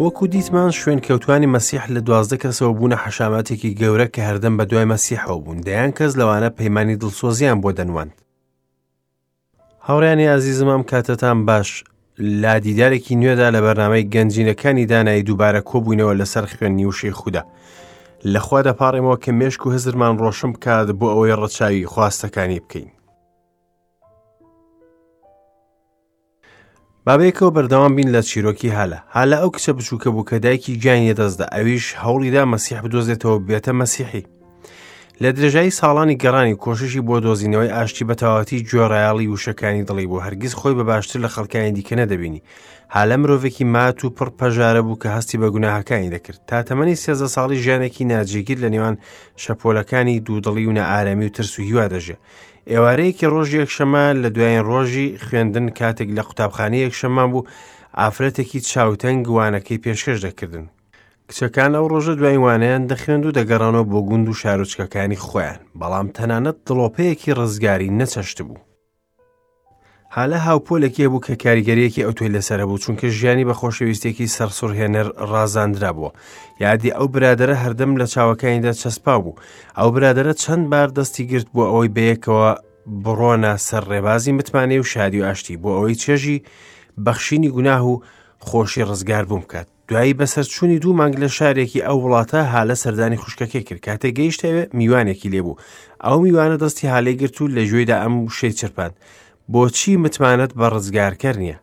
وەکو دیتمان شوێنکەوتوانی مەسیح لە 12 کەسەوە بوونە حەشاماتێکی گەورە کە هەردەم بە دوای مەسیحەوە بوون، دەیان کەس لەوانە پەیمانی دڵسۆزیان بۆ دەنواند. هاوڕیانی ئازیزم ئەم کاتەتان باش لە دیدارێکی نوێدا لە بەرنامەی گەنجینەکانی دانایی دووبارە کۆبووینەوە لەسەر خوێندنی وشەی خودا. لەخوا دەپاڕێمەوە کە مێشک و هزرمان ڕۆشن بکات بۆ ئەوەی ڕەچاوی خواستەکانی بکەین. با بەیەکەوە بەردەوام بین لە چیرۆکی هالە. هالە ئەو کچە بچووکە بوو کە دایکی گیانی لەدەستدا، ئەویش هەوڵیدا مەسیح بدۆزێتەوە بێتە مەسیحی. لە درێژایی ساڵانی گەڕانی کۆششی بۆ دۆزینەوەی ئاشتی بە تەواوەتی گوێڕایەڵی وشەکانی دڵی بوو، هەرگیز خۆی بە باشتر لە خەڵکانی دیکە نەدەبینی. هالە مرۆڤێکی مات و پڕ پەژارە بوو کە هەستی بە گوناهەکانی دەکرد. تا تەمەنی 13 ساڵی ژیانێکی ناجێگیر لە نێوان شەپۆلەکانی دوودڵی و نائارامی و ترس و هیوا دەژیا. ئێوارەیەکی ڕۆژی یەکشەمە لە دوایین ڕۆژی خوێندن کاتێک لە قوتابخانەی یەکشەممان بوو ئافرەتێکی چاوتەنگ وانەکەی پێشکەش دەکردن کچەکان ئەو ڕۆژە دوای وانەیان دەخوێند و دەگەڕانەوە بۆ گوند و شارۆچکەکانی خۆیان بەڵام تەنانەت دڵۆپەیەکی ڕزگاری نەچەشت بوو هالە هاوپۆلێکی هەبوو کە کاریگەریەکی ئەوتۆی لەسەر هەبوو چونکە ژیانی بە خۆشەویستێکی سەرسوڕهێنەر ڕازاندرابووە یادی ئەو برادەرە هەردەم لە چاوەکانیدا چەسپاو بوو ئەو برادەرە چەند بار دەستی گرت بۆ ئەوەی بەیەکەوە بڕۆنە سەر ڕێبازی متمانەی و شادی و ئاشتی بۆ ئەوەی چێژی بەخشینی گوناه و خۆشی ڕزگار بووم بکات دوایی بەسەرچوونی دوو مانگ لە شارێکی ئەو وڵاتە هالە سەردانی خوشکەکەی کرد کاتێک گەیشتە ئەوێ میوانێکی لێبوو ئەو میوانە دەستی هالەی گرت و لە گوێیدا ئەم وشەی چرپاند بۆچی متمانەت بە ڕزگارکەر نییە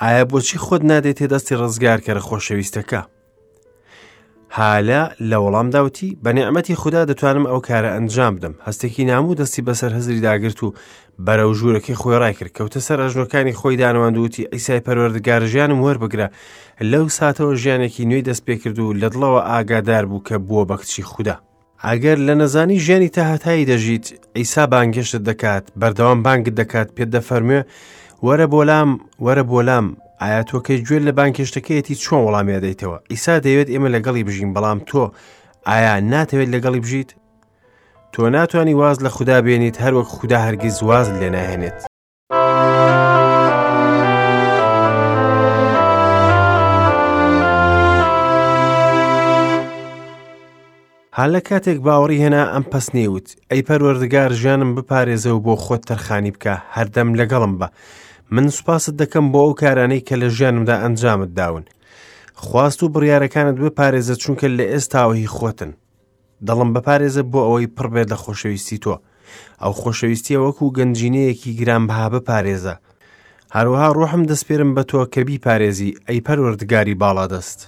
ئایا بۆچی خۆت نادەیتە دەستی ڕزگارکەرە خۆشەویستەکە هالە لە وەڵامدا وتی، بە نیعمەتی خودا دەتوانم ئەو کارە ئەنجام بدەم. هەستێکی ناموو دەستی بەسەر هزری داگرت و بەرەو ژوورەکەی خۆی ڕایکرد. کەوتە سەر ئەژنۆکانی خۆی دانەواند و وتی، عیسای پەروەردگار ژیانم وەربگرە. لەو ساتەوە ژیانێکی نوێی دەست پێکرد و لە دڵەوە ئاگادار بوو کە بووە بە کچی خودا. ئەگەر لە نەزانی ژیانی تاهەتایی دەژیت، عیسا بانگهێشتت دەکات، بەردەوام بانگت دەکات، پێت دەفەرموێ، وەرە بۆ لام، وەرە بۆ لام. ئایا تۆ کە گوێت لە بانگهێشتەکەیەتی چۆن وەڵامی ئەدەیتەوە؟ عیسا دەیەوێت ئێمە لەگەڵی بژین، بەڵام تۆ ئایا ناتەوێت لەگەڵی بژیت؟ تۆ ناتوانی واز لە خودا بێنیت هەروەک خودا هەرگیز وازت لێ ناهێنێت. هالە کاتێک باوەڕی هێنا ئەم پەسنەی وت، ئەی پەروەردگار ژیانم بپارێزە و بۆ خۆت تەرخانی بکە، هەردەم لەگەڵم بە. من سوپاست دەکەم بۆ ئەو کارانەی کە لە ژیانمدا ئەنجامت داون. خواست و بڕیارەکانت بپارێزە چونکە لە ئێستاوە هی خۆتن. دڵم بپارێزە بۆ ئەوەی پڕ بێت لە خۆشەویستی تۆ. ئەو خۆشەویستیە وەکو گەنجینەیەکی گرانبەها بپارێزە. هەروەها ڕۆحم دەسپێرم بە تۆ کە بیپارێزی، ئەی پەروەردگاری باڵادەست.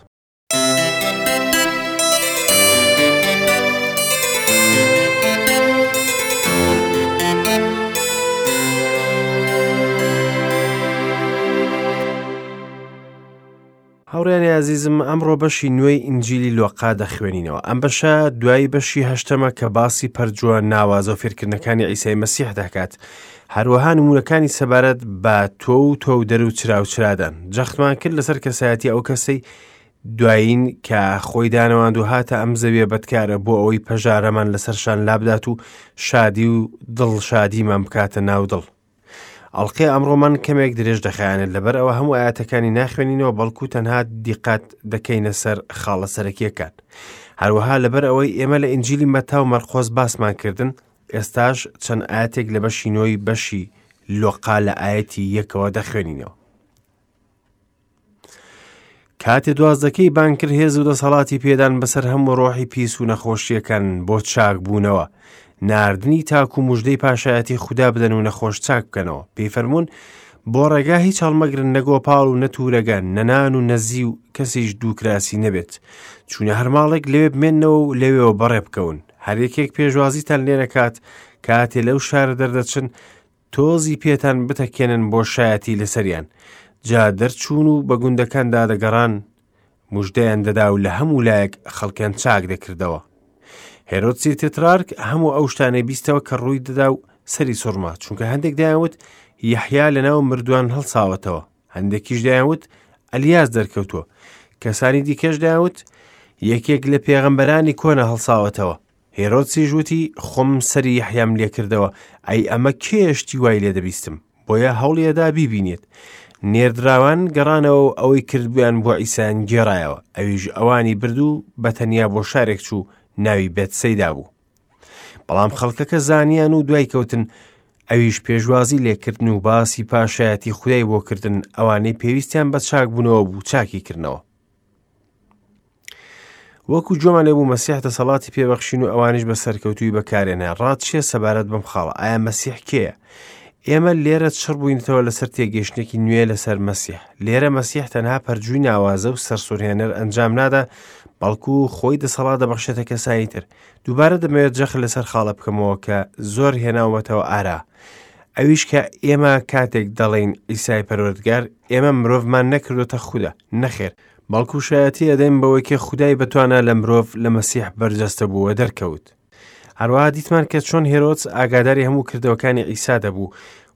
هاوڕێیانی ئازیزم ئەمڕۆ بەشی نوێی ئینجیلی لۆقا دەخوێنینەوە ئەم بەشە دوای بەشی هەشتەمە کە باسی پەرجووە ناوازە و فێرکردنەکانی عیسای مەسیح دەکات هەروەها نمونەکانی سەبارەت بە تۆ و تۆ و دەر و چرا و چرادان جەختمان کرد لەسەر کەسایەتی ئەو کەسەی دوایین کە خۆی دانەواند و هاتە ئەم زەویە بەدکارە بۆ ئەوەی پەژارەمان لەسەر شان لابدات و شادی و دڵ شادیمان بکاتە ناو دڵ ئەڵقەی ئەمڕۆمان کەمێک درێژ دەخایەنێت لەبەر ئەوە هەموو ئاەتەکانی ناخوێنینەوە بەڵکو تەنها دیقەت دەکەینە سەر خاڵە سەرەکیەکان هەروەها لەبەر ئەوەی ئێمە لە ئینجیلی مەتا و مەرقۆس باسمان کردن ئێستاش چەند ئاەتێک لە بەشی نۆی بەشی لۆقا لە ئاەتی یەکەوە دەخوێنینەوە کاتێ دوازدەکەی بانگ کرد هێز و دەسەڵاتی پێدان بەسەر هەموو ڕۆحی پیس و نەخۆشیەکان بۆ چاک بوونەوە ناردنی تاکو مژدەی پاشایەتی خودا بدەن و نەخۆش چاک بکەنەوە پێی فەرمونون بۆ ڕێگا هیچ هەڵمەگرن نە گۆپاڵ و نە تورەگە نەنان و نەزی و کەسیش دووکراسی نەبێت چونە هەر ماڵێک لەوێ بمێنەوە و لەوێەوە بەڕێ بکەون هەر یەکێک پێشوازیتان لێ نەکات کاتێ لەو شارە دەردەچن تۆزی پێتان بتەکێنن بۆ شایەتی لەسەریان. جا دەرچوون و بە گوندەکاندا دەگەڕان، مژدەیان دەدا و لە هەموو لایەک خەڵکیان چاک دەکردەوە. هێرۆدسی تترارک هەموو ئەو شتانەی بیستەوە کە ڕووی دەدا و سەری سوڕما، چونکە هەندێک دەیانوت یەحیا لەناو مردووان هەڵساوەتەوە، هەندێکیش دەیانوت ئەلیاس دەرکەوتووە، کەسانی دیکەش دەیانوت یەکێک لە پێغەمبەرانی کۆنە هەڵساوەتەوە. هێرۆدسیش وتی، خۆم سەری یەحیام لێکردەوە، ئەی ئەمە کێیە شتی وای لێ دەبیستم؟ بۆیە هەوڵی ئەدا بیبینێت. نێردراوان گەڕانەوە و ئەوەی کردبوویان بۆ عیسایان گێڕایەوە، ئەویش ئەوانی برد و بە تەنیا بۆ شارێک چوو ناوی بێتسەیدا بوو. بەڵام خەڵکەکە زانیان و دوای کەوتن، ئەویش پێشوازی لێکردن و باسی پاشایەتی خودای بۆ کردن، ئەوانەی پێویستیان بە چاکبوونەوە بوو چاکی کردنەوە. وەکو گوێمان لێ بوو مەسیح دەسەڵاتی پێبەخشین و ئەوانیش بە سەرکەوتووی بەکارێنە ڕات چیە سەبارەت بەم خاڵە ئایا مەسیح کێیە ئێمە لێرە چڕ بووینەتەوە لەسەر تێگەیشتێکی نوێ لەسەر مەسیح لێرە مەسیح تەنها پەرجووی ناوازە و سەرسوورهێنەر ئەنجام نادا بەڵکو خۆی دەسەڵات دەبەخشێتە کەسانی تر دووبارە دەمەوێت جەخت لەسەر خاڵە بکەمەوە کە زۆر هێناومەتەوە ئارا ئەویش کە ئێمە کاتێک دەڵێین ئیسای پەروەردگار ئێمە مرۆڤمان نەکردوتە خودا نەخێر بەڵکو شایەتی ئەدەین بەوەی کە خودای بەتوانا لە مرۆڤ لە مەسیح بەرجەستە بوو و دەرکەوت. هەروەها دیتمان کە چۆن هێرۆدس ئاگاداری هەموو کردەوەکانی عیسا دەبوو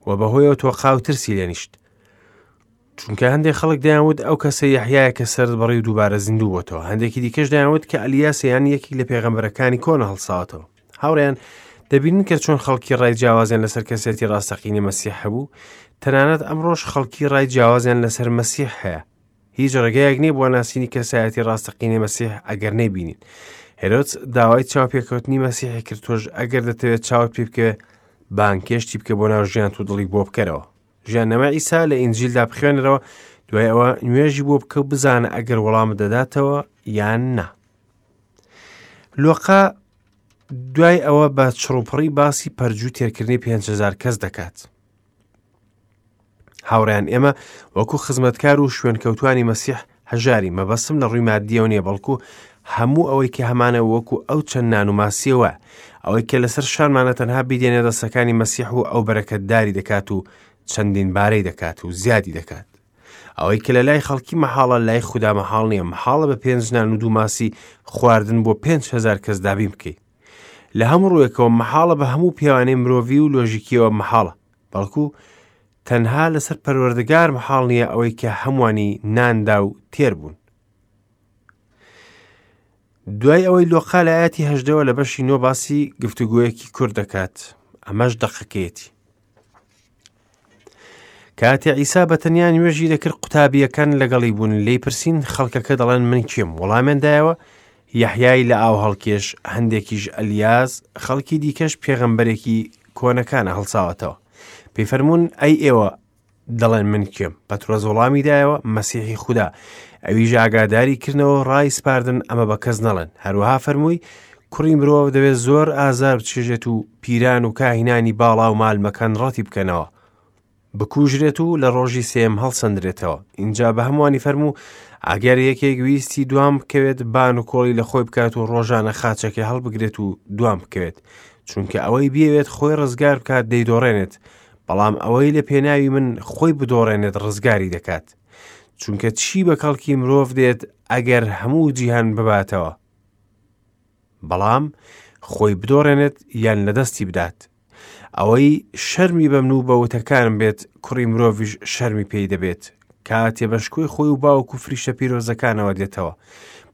و بەهۆیەوە تۆقا و ترسی لێنیشت. چونکە هەندێک خەڵک دەیانوت ئەو کەسە یەحیایە کە سەرت بڕی و دووبارە زیندوو بۆتەوە هەندێکی دیکەش دەیانوت کە ئەلیاس یان یەکێک لە پێغەمبەرەکانی کۆنە هەڵساوەتەوە هاوڕێیان دەبینن کە چۆن خەڵکی ڕای جیاوازیان لەسەر کەسێتی ڕاستەقینەی مەسیح هەبوو تەنانەت ئەمڕۆش خەڵکی ڕای جیاوازیان لەسەر مەسیح هەیە هیچ ڕێگەیەک نییە بۆ ناسینی کەسایەتی ڕاستەقینەی مەسیح ئەگەر نەیبینین. هێرۆدس داوای چاوپێکەوتنی مەسیحی کرد تۆش ئەگەر دەتەوێت چاوت پێ بکەوێ بانگهێشتی بکە بۆ ناو ژیانت و دڵی بۆ بکەرەوە. ژیاننامەی عیسا لە ئینجیلدا بخوێنەرەوە دوای ئەوە نوێژی بۆ بکە و بزانە ئەگەر وەڵامت دەداتەوە یان نا. لۆقا دوای ئەوە بە چڕوپڕی باسی پەرجوو تێرکردنی 5هزار کەس دەکات. هاوڕێیان ئێمە وەکو خزمەتکار و شوێنکەوتوانی مەسیح هەژاری مەبەستم لە ڕووی مادیەوە نییە بەڵکو هەموو ئەوەی کە هەمانە وەکو ئەو چەند نان و ماسیەوە ئەوەی کە لەسەر شانمانە تەنها بیدێنێ دەستەکانی مەسیح و ئەو بەرەکەتداری دەکات و چەندین بارەی دەکات و زیادی دەکات ئەوەی کە لە لای خەڵکی مەحاڵە لای خودا مەحاڵ نییە مەحاڵە بە پێنج نان و دوو ماسی خواردن بۆ 5هزار کەس دابین بکەیت لە هەموو ڕوویەکەوە مەحاڵە بە هەموو پێوانەی مرۆڤی و لۆژیکیەوە مەحاڵە بەڵکو تەنها لەسەر پەروەردگار مەحاڵ نییە ئەوەی کە هەمووانی ناندا و تێر بوون. دوای ئەوەی لۆقا لە ئاەتی هەژدەوە لە بەشی نۆ باسی گفتوگویەکی کورد دەکات ئەمەش دەقەکەیەتی. کاتێ عیسا بە تەنیا نوێژی دەکرد قوتابییەکان لەگەڵی بوون لێی پرسین خەڵکەکە دەڵێن من کێم وەڵامیان دایەوە یەحیای لە ئاو هەڵکێش هەندێکیش ئەلیاس خەڵکی دیکەش پێغەمبەرێکی کۆنەکانە هەڵساوەتەوە پێی فەرموون ئەی ئێوە دەڵێن من کێم پەترۆس وەڵامی دایەوە مەسیحی خودا ئەویش ئاگاداری کردنەوە ڕای سپاردن ئەمە بە کەس نەڵێن هەروەها فەرمووی کوڕی مرۆڤ دەبێت زۆر ئازار بچێژێت و پیران و کاهینانی باڵا و مالمەکان ڕەتی بکەنەوە بکوژرێت و لە ڕۆژی سێم هەڵسەندرێتەوە اینجا بە هەمووانی فەرموو ئەگەر یەکێک ویستی دوام بکەوێت بان و کۆڵی لە خۆی بکات و ڕۆژانە خاچەکەی هەڵبگرێت و دوام بکەوێت چونکە ئەوەی بیەوێت خۆی ڕزگار بکات دەیدۆڕێنێت بەڵام ئەوەی لە پێناوی من خۆی بدۆڕێنێت ڕزگاری دەکات چونکە چی بە کەڵکی مرۆڤ دێت ئەگەر هەموو جیهان بباتەوە بەڵام خۆی بدۆڕێنێت یان لە دەستی بدات ئەوەی شەرمی بە من و بە وتەکانم بێت کوڕی مرۆڤیش شەرمی پێی دەبێت کاتێ بە شکۆی خۆی و باوک و فریشتە پیرۆزەکانەوە دێتەوە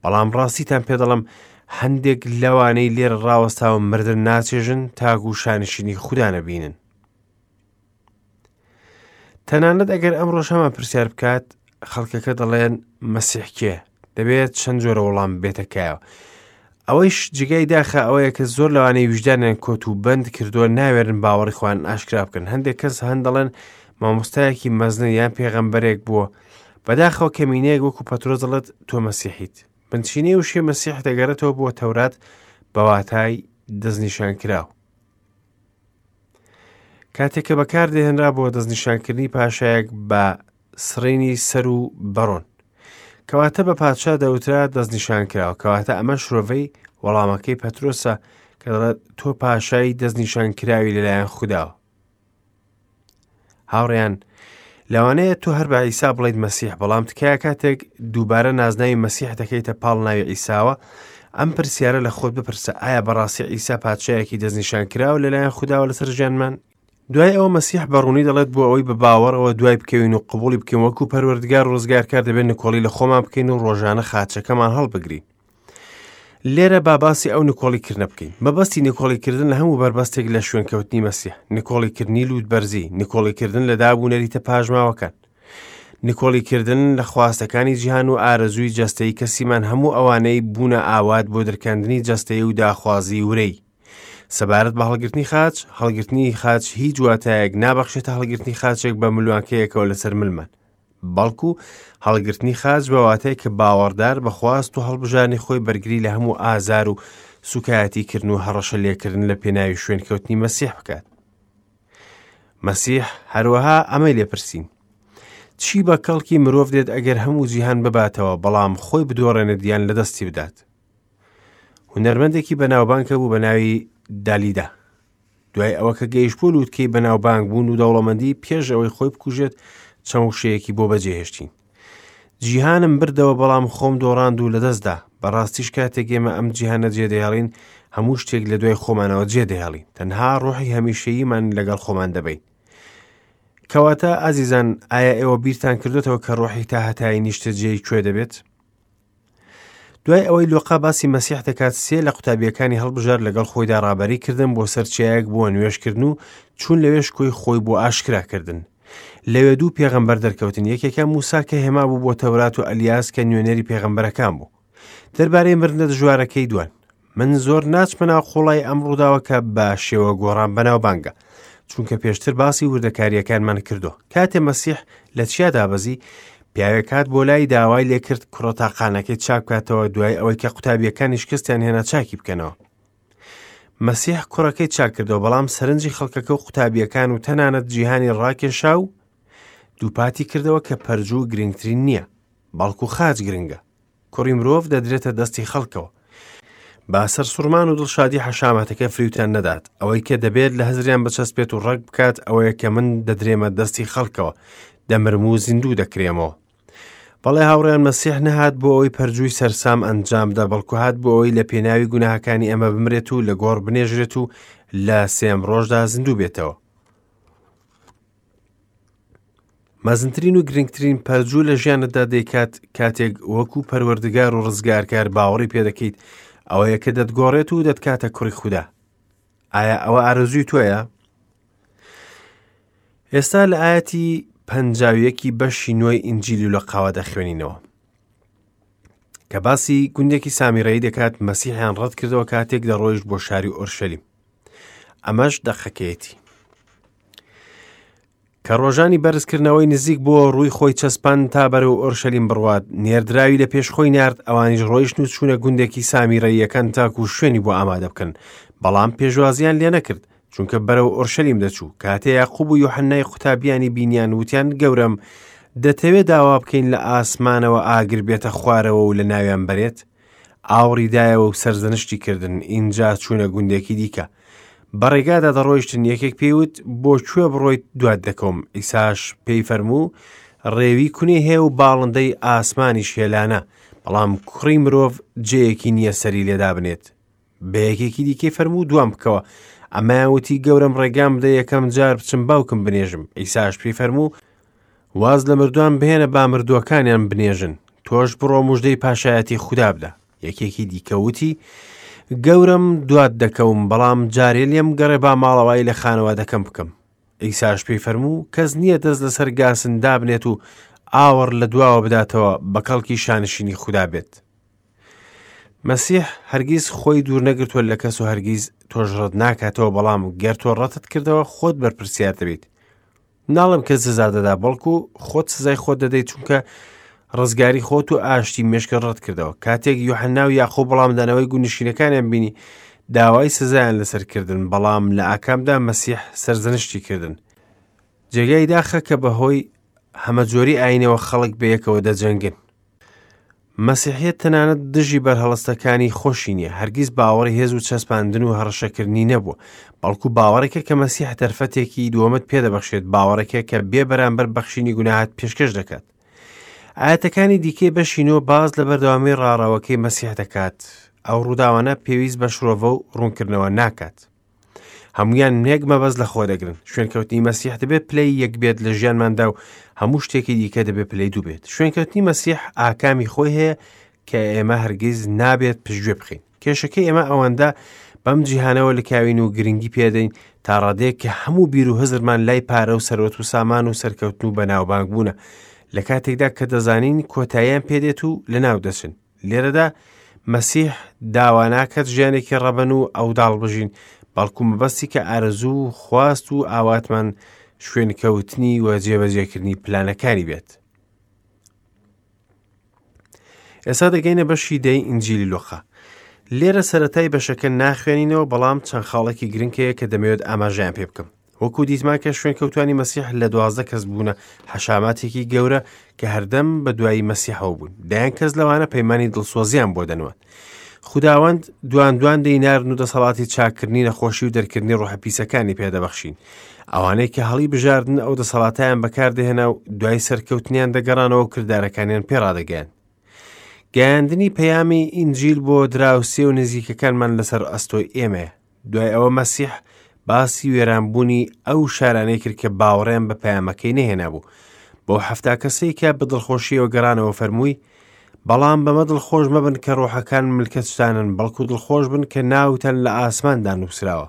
بەڵام ڕاستیتان پێ دەڵم هەندێک لەوانەی لێرە ڕاوەستاوە مردن ناچێژن تاکو شانشینی خودا نەبینن تەنانەت ئەگەر ئەمڕۆش هەمان پرسیار بکات خەڵکەکە دەڵێن مەسیح کێ دەبێت چەند جۆرە وەڵام بێتە کایەوە ئەوەیش جگای داخە ئەوەیە کە زۆر لەوانەیە ویژدانیان کۆت و بەند کردووە ناوێرن باوەڕی خۆیان ئاشکرا بکەن هەندێک کەس هەن دەڵێن مامۆستایەکی مەزنە یان پێغەمبەرێک بووە بەداخەوە کەمینەیەک وەکو پەترۆس دەڵێت تۆ مەسیحیت بنچینەی وشەی مەسیح دەگەڕێتەوە بۆ تەورات بە واتای دەستنیشانکراو کاتێک کە بەکاردەهێنرا بۆ دەستنیشانکردنی پاشایەک بە سڕینی سەر و بەڕۆن. کەواتە بە پادشا دەوترا دەستنیشانکراوە، کەواتە ئەمە شرۆڤەی وەڵامەکەی پەترۆسە کە دەڵێت تۆ پاشای دەستنیشانکراوی لەلایەن خوداوە. هاوڕێیان لەوانەیە تۆ هەر بە عیسا بڵیت مەسیح بەڵام تکایە کاتێک دووبارە نازناوی مەسیح دەکەیتە پاڵ ناوی عیساوە ئەم پرسیارە لە خۆت بپرسە ئایا بەڕاستی عیسا پادشایەکی دەستنیشان کراوە لەلایەن خوداوە لەسەر ژیانمان دوای ئەوە مەسیح بە ڕوونی دەڵێت بۆ ئەوەی بە باوەڕەوە دوای بکەوین و قبوڵی بکەین وەکو پەروەردگار و ڕزگارکار دەبێت نکۆڵی لە خۆمان بکەین و ڕۆژانە خاچەکەمان هەڵبگرین لێرە با باسی ئەو نکۆڵی کردنە بکەین مەبەستی نکۆڵی کردن لە هەموو بەربەستێک لە شوێنکەوتنی مەسیح نکۆڵی کردنی لووت بەرزی نکۆڵی کردن لە داب و نەریتە پاژماوەکان. نکۆڵیکردن لە خواستەکانی جیهان و ئارەزووی جەستەیی کەسیمان هەموو ئەوانەی بوونە ئاوات بۆ درکاندنی جەستەیی و داخوازی ورەی. سەبارەت بە هەڵگرتنی خاچ، هەڵگرتنی خاچ هیچ واتایەک نابەخشێتە هەڵگرتنی خاچێک بە ملوانکەیەکەوە لەسەر ملمان. بەڵکو هەڵگرتنی خاچ بە واتای کە باوەڕدار بە خواست و هەڵبژانی خۆی بەرگری لە هەموو ئازار و سوکایەتی کردن و هەڕەشە لێکردن لە پێناوی شوێنکەوتنی مەسیح بکات. مەسیح هەروەها ئەمەی لێپرسین. چی بە کەڵکی مرۆڤ دێت ئەگەر هەموو جیهان بباتەوە بەڵام خۆی بدۆڕێنێت یان لەدەستی بدات؟ هونەرمەندێکی بەناوبانگ هەبوو بە ناوی دالیدا. دوای ئەوە کە گەیشت بۆ لووتکەی بەناوبانگ بوون و دەوڵەمەندی پێش ئەوەی خۆی بکوژێت چەند وشەیەکی بۆ بەجێهێشتین. جیهانم بردەوە بەڵام خۆم دۆڕاند و لەدەستدا بەڕاستیش کاتێک ئێمە ئەم جیهانە جێدەهێڵین هەموو شتێک لە دوای خۆمانەوە جێدەهێڵین تەنها ڕۆحی هەمیشەییمان لەگەڵ خۆمان دەبین کەواتە ئازیزان ئایا ئێوە بیرتان کردوتەوە کە ڕۆحی تا هەتایی نیشتەجێی کوێ دەبێت؟ دوای ئەوەی لۆقا باسی مەسیح دەکات سێ لە قوتابیەکانی هەڵبژار لەگەڵ خۆیدا ڕابەری کردن بۆ سەر چیایەک بۆ نوێژکردن و چوون لەوێ شکۆی خۆی بۆ ئاشکرا کردن لەوێ دوو پێغەمبەر دەرکەوتن یەکێکە موسا کە هێما بوو بۆ تەورات و ئەلیاس کە نوێنەری پێغەمبەرەکان بوو دەربارەی مردنە دژوارەکەی دوان من زۆر ناچمە ناو قوڵای ئەم ڕووداوە کە بە شێوە گۆڕان بەناوبانگە چونکە پێشتر باسی وردەکاریەکانمان کردو کاتێ مەسیح لە چیا دابەزی پیاوێک هات بۆ لای داوای لێکرد کوڕە تاقانەکەی چاک بکاتەوە دوای ئەوەی کە قوتابیەکانی شکستیان هێنا چاکی بکەنەوە مەسیح کوڕەکەی چاک کردەوە بەڵام سەرنجی خەڵکەکە و قوتابیەکان و تەنانەت جیهانی ڕاکێشا و دووپاتی کردەوە کە پەرجوو گرنگترین نییە بەڵکو خاچ گرنگە کوڕی مرۆڤ دەدرێتە دەستی خەڵکەوە. با سەرسوڕمان و دڵشادی حەشامەتەکە فریوتان نەدات. ئەوەی کە دەبێت لە هزریان بچەسپێت و ڕەگ بکات ئەوەیە کە من دەدرێمە دەستی خەڵکەوە، دەمرم و زیندوو دەکرێمەوە. بەڵێ هاوڕێیان مەسیح نەهات بۆ ئەوەی پەرجووی سەرسام ئەنجام بدا بەڵکو هات بۆ ئەوەی لە پێناوی گوناهەکانی ئێمە بمرێت و لە گۆڕ بنێژرێت و لە سێم ڕۆژدا زیندوو بێتەوە. مەزنترین و گرنگترین پەرجوو لە ژیانتدا دەیکات کاتێک وەکو پەروەردگار و ڕزگارکار باوەڕی پێدەکەیت ئەوەیە کە دەتگۆڕێت و دەتکاتە کوڕی خودا ئایا ئەوە ئارەزووی تۆیە؟ ئێستا لە ئاەتی پەنجاویەکی بەشی نوێی ئینجیلی و لە قاوە دەخوێنینەوە کە باسی گوندێکی سامیرەی دەکات مەسیحیان ڕەت کردەوە کاتێک دەڕۆیشت بۆ شاری ئۆرشەلیم ئەمەش دەقەکەیەتی کە ڕۆژانی بەرزکردنەوەی نزیک بۆ ڕووی خۆی چەسپاند تا بەرەو ئۆرشەلیم بڕوات، نێردراوی لە پێش خۆی نارد، ئەوانیش ڕۆیشتن و چوونە گوندێکی سامیرەییەکان تاکو شوێنی بۆ ئامادە بکەن، بەڵام پێشوازییان لێ نەکرد، چونکە بەرەو ئۆرشەلیم دەچوو. کاتێ یاقوب و یۆحەنای قوتابیانی بینیان، وتیان، گەورەم، دەتەوێ داوا بکەین لە ئاسمانەوە ئاگر بێتە خوارەوە و لەناویان بەرێت؟ ئاوڕی دایەوە و سەرزەنشتی کردن، ئینجا چوونە گوندێکی دیکە. بە ڕێگادا دەڕۆیشتن، یەکێک پێی وت، بۆ کوێ بڕۆیت دوات دەکەوم؟ عیساش پێی فەرموو، ڕێوی کونی هەیە و باڵندەی ئاسمانیش هێلانە، بەڵام کوڕی مرۆڤ جێیەکی نییە سەری لێ دابنێت. بە یەکێکی دیکەی فەرموو، دوام بکەوە. ئەمەیان وتی، گەورەم ڕێگام بدە یەکەم جار بچم باوکم بنێژم. عیساش پێی فەرموو، واز لە مردووان بهێنە با مردووەکانیان بنێژن، تۆش بڕۆ مژدەی پاشایەتی خودا بدە. یەکێکی دیکە وتی، گەورەم دوات دەکەوم، بەڵام جارێ لێم گەڕێ با ماڵەوایی لە خانەوادەکەم بکەم. عیساش پێی فەرموو، کەس نییە دەست لەسەر گاسن دابنێت و ئاوڕ لە دواوە بداتەوە بە کەڵکی شانشینی خودا بێت. مەسیح هەرگیز خۆی دوور نەگرتووە لە کەس و هەرگیز تۆش ڕەت ناکاتەوە، بەڵام گەر تۆ ڕەتت کردەوە خۆت بەرپرسیار دەبیت. ناڵێم کە سزا دەدا بەڵکو خۆت سزای خۆت دەدەیت چونکە ڕزگاری خۆت و ئاشتی مێشکە ڕەت کردەوە کاتێک یوحنا و یاخۆ بەڵامدانەوەی گونشینەکانیان بینی داوای سزایان لەسەر کردن بەڵام لە ئاکامدا مەسیح سەرزەنشتی کردن جێگای داخە کە بەهۆی هەمەجۆری ئاینەوە خەڵک بەیەکەوە دەجەنگن مەسیحیەت تەنانەت دژی بەرهەڵستەکانی خۆشی نییە، هەرگیز باوەڕی هێز و چەسپاندن و هەڕەشەکردنی نەبووە، بەڵکو باوەڕێکە کە مەسیح دەرفەتێکی دووەمت پێدەبەخشێت، باوەڕێکە کە بێ بەرامبەر بەخشینی گوناهات پێشکەش دەکات. ئاەتەکانی دیکەی بەشی نۆ باز لە بەردەوامی ڕاڕەوەکەی مەسیح دەکات. ئەو ڕووداوانە پێویست بە شرۆڤە و ڕوونکردنەوە ناکات. هەمویان یەک مەبەست لە خۆ دەگرن شوێنکەوتنی مەسیح دەبێت پلەی یەک بێت لە ژیانماندا و هەموو شتێکی دیکە دەبێت پلەی دوو بێت شوێنکەوتنی مەسیح ئاکامی خۆی هەیە کە ئێمە هەرگیز نابێت پشتگوێ بخەین کێشەکەی ئێمە ئەوەندە بەم جیهانەوە لکاوین و گرنگی پێدەین تا ڕادەیەک کە هەموو بیر و هزرمان لای پارە و سەرۆت و سامان و سەرکەوتن و بەناوبانگ بوونە. لە کاتێکدا کە دەزانین کۆتاییان پێدێت و لەناو دەچن. لێرەدا مەسیح داوا ناکات ژیانێکی ڕەبەن و ئەوداڵ بژین، بەڵکو مەبەستی کە ئارەزوو و خواست و ئاواتمان شوێنکەوتنی و جێبەجێکردنی پلانەکانی بێت. ئێستا دەگەینە بەشی دەی ئینجیلی لوقا. لێرە سەرەتای بەشەکە ناخوێنینەوە بەڵام چەند خاڵێکی گرنگ هەیە کە دەمەوێت ئاماژەیان پێ بکەم. وەکو دیتمان کە شوێنکەوتوانی مەسیح لە دوازدە کەس بوونە حەشاماتێکی گەورە کە هەردەم بە دوایی مەسیحەوە بوون. دەیان کەس لەوانە پەیمانی دڵسۆزیان بۆ دەنوان. خوداوەند دوان دوان دەینارن و دەسەڵاتی چاککردنی نەخۆشی و دەرکردنی ڕۆحە پیسەکانی پێدەبەخشین. ئەوانەی کە هەڵی بژاردن ئەو دەسەڵاتیان بەکاردەهێنا و دوای سەرکەوتنیان دەگەڕانەوە و کردارەکانیان پێڕادەگەیان. گەیاندنی پەیامی ئینجیل بۆ دراوسێ و نزیکەکانمان لەسەر ئەستۆی ئێمەیە. دوای ئەوە مەسیح باسی وێرانبوونی ئەو شارانەی کرد کە باوەڕیان بە پەیامەکەی نەهێنابوو. بەو حەفتا کەسەی کە بە دڵخۆشیەوە گەڕانەوە فەرمووی، بەڵام بەمە دڵخۆش مەبن کە ڕۆحەکان ملکەچتانن، بەڵکو دڵخۆش بن کە ناوتان لە ئاسماندا نووسراوە.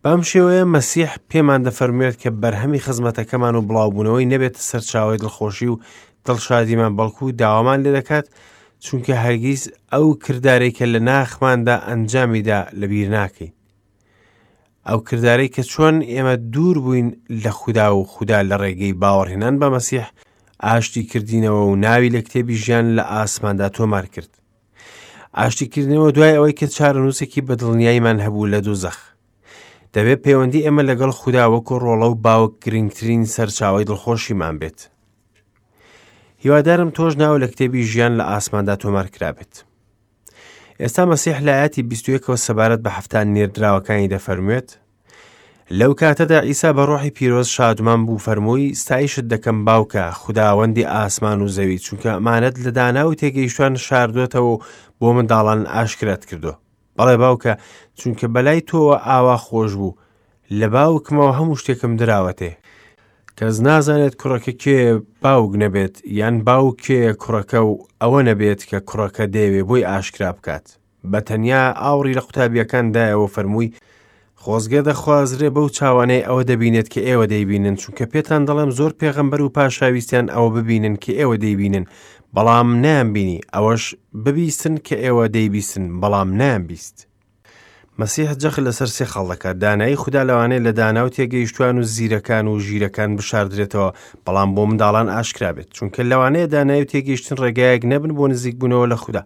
بەم شێوەیە مەسیح پێمان دەفەرموێت کە بەرهەمی خزمەتەکەمان و بڵاوبوونەوەی نەبێتە سەرچاوەی دڵخۆشی و دڵشادیمان بەڵکو داوامان لێ دەکات چونکە هەرگیز ئەو کردارەی کە لە ناخماندا ئەنجامیدا لەبیر ناکەین ئەو کردارەی کە چۆن ئێمە دوور بووین لە خودا و خودا لە ڕێگەی باوەڕهێنان بە مەسیح ئاشتی کردینەوە و ناوی لە کتێبی ژیان لە ئاسماندا تۆمار کرد ئاشتیکردنەوە دوای ئەوەی کە چارەنووسێکی بەدڵنیاییمان هەبوو لە دوزەخ. دەبێت پەیوەندی ئێمە لەگەڵ خودا وەکو ڕۆڵە و باوک گرنگترین سەرچاوەی دڵخۆشیمان بێت. هیوادارم تۆش ناو لە کتێبی ژیان لە ئاسماندا تۆمار کرابێت. ئێستا مەسیح لە ئاەتی 21ەوە سەبارەت بە حەفتان نێردراوەکانی دەفەرموێت لەو کاتەدا عیسا بە ڕۆحی پیرۆز شادمان بوو فەرمووی ستایشت دەکەم باوکە خوداوەندی ئاسمان و زەوی چونکە ئەمانەت لە دانا و تێگەیشتوان شاردۆتەوە و بۆ منداڵان ئاشکرات کردو بەڵێ باوکە چونکە بەلای تۆوە ئاوا خۆش بوو لە باوکمەوە هەموو شتێکم دراوەتێ کەس نازانێت کوڕەکە کێ باوک نەبێت یان باوک کێ کوڕەکە و ئەوە نەبێت کە کوڕەکە دەیەوێ بۆی ئاشکرا بکات بە تەنیا ئاوڕی لە قوتابییەکان دایەوە و فەرمووی، خۆزگە دەخوازرێ بەو چاوانەی ئەوە دەبینێت کە ئێوە دەیبینن، چونکە پێتان دەڵێم زۆر پێغەمبەر و پاشا ویستیان ئەوە ببینن کە ئێوە دەیبینن، بەڵام نەیانبینی، ئەوەش ببیستن کە ئێوە دەیبیستن، بەڵام نەیانبیست. مەسیح جەخت لەسەر سێ خاڵ دەکات، دانایی خودا لەوانەیە لە دانا و تێگەیشتوان و زیرەکان و ژیرەکان بشاردرێتەوە، بەڵام بۆ منداڵان ئاشکرا بێت، چونکە لەوانەیە دانایی و تێگەیشتن ڕێگایەک نەبن بۆ نزیکبوونەوە لە خودا،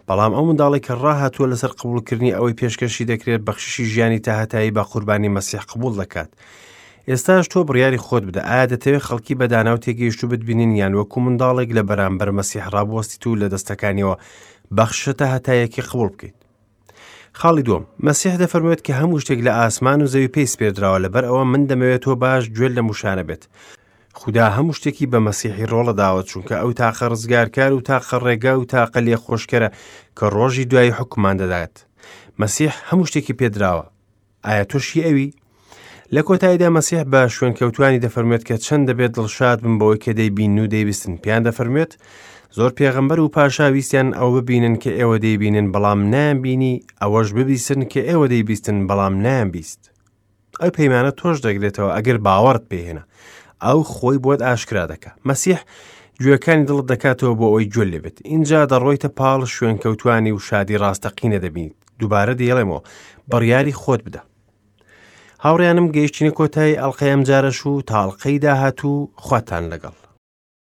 بەڵام ئەو منداڵێک کە ڕاهاتووە لەسەر قبوڵکردنی ئەوەی پێشکەشی دەکرێت بەخششی ژیانی تاهەتایی بە قوربانی مەسیح قبوڵ دەکات. ئێستاش تۆ بڕیاری خۆت بدە ئایا دەتەوێت خەڵکی بە دانا و تێگەیشتوو بتبینن یان وەکو منداڵێک لە بەرامبەر مەسیح ڕابوەستیت و لە دەستەکانیەوە بەخششە تاهەتاییەکەی قبوڵ بکەیت. خاڵی دووەم، مەسیح دەفەرموێت کە هەموو شتێک لە ئاسمان و زەوی پێی سپێردراوە لەبەر ئەوە من دەمەوێت تۆ باش گوێت لەم وشانە بێت. خودا هەموو شتێکی بە مەسیحی ڕۆڵە داوە چونکە ئەو تاقە ڕزگارکار و تاقە ڕێگا و تاقە لێخۆشکەرە کە ڕۆژی دوایی حکومان دەدات. مەسیح هەموو شتێکی پێدراوە. ئایا تۆش هی ئەوی؟ لە کۆتاییدا مەسیح بە شوێنکەوتوانی دەفەرموێت کە چەند دەبێت دڵشاد بن بەوەی کە دەیبینن و دەیبیستن پێیان دەفەرموێت زۆر پێغەمبەر و پاشا ویستیان ئەوە ببینن کە ئێوە دەیبینن بەڵام نایانبینی ئەوەش ببیستن کە ئێوە دەیبیستن بەڵام نایانبیست ئەو پەیمانە تۆش دەگرێتەوە ئەگەر باوەڕت پێهێنا ئەو خۆی بۆت ئاشکرا دەکا مەسیح گوێەکانی دڵت دەکاتەوە بۆ ئەوەی گوێ لێبێت اینجا دەڕۆیتە پاڵ شوێنکەوتوانی و شادی ڕاستەقینە دەبینیت دووبارە دەیڵێمەوە بڕیاری خۆت بدە هاوڕیانم گەیشتینە کۆتایی ئەڵلقەی ئەمجارەش و تاڵقەی داهاتوو خواتان لەگەڵ.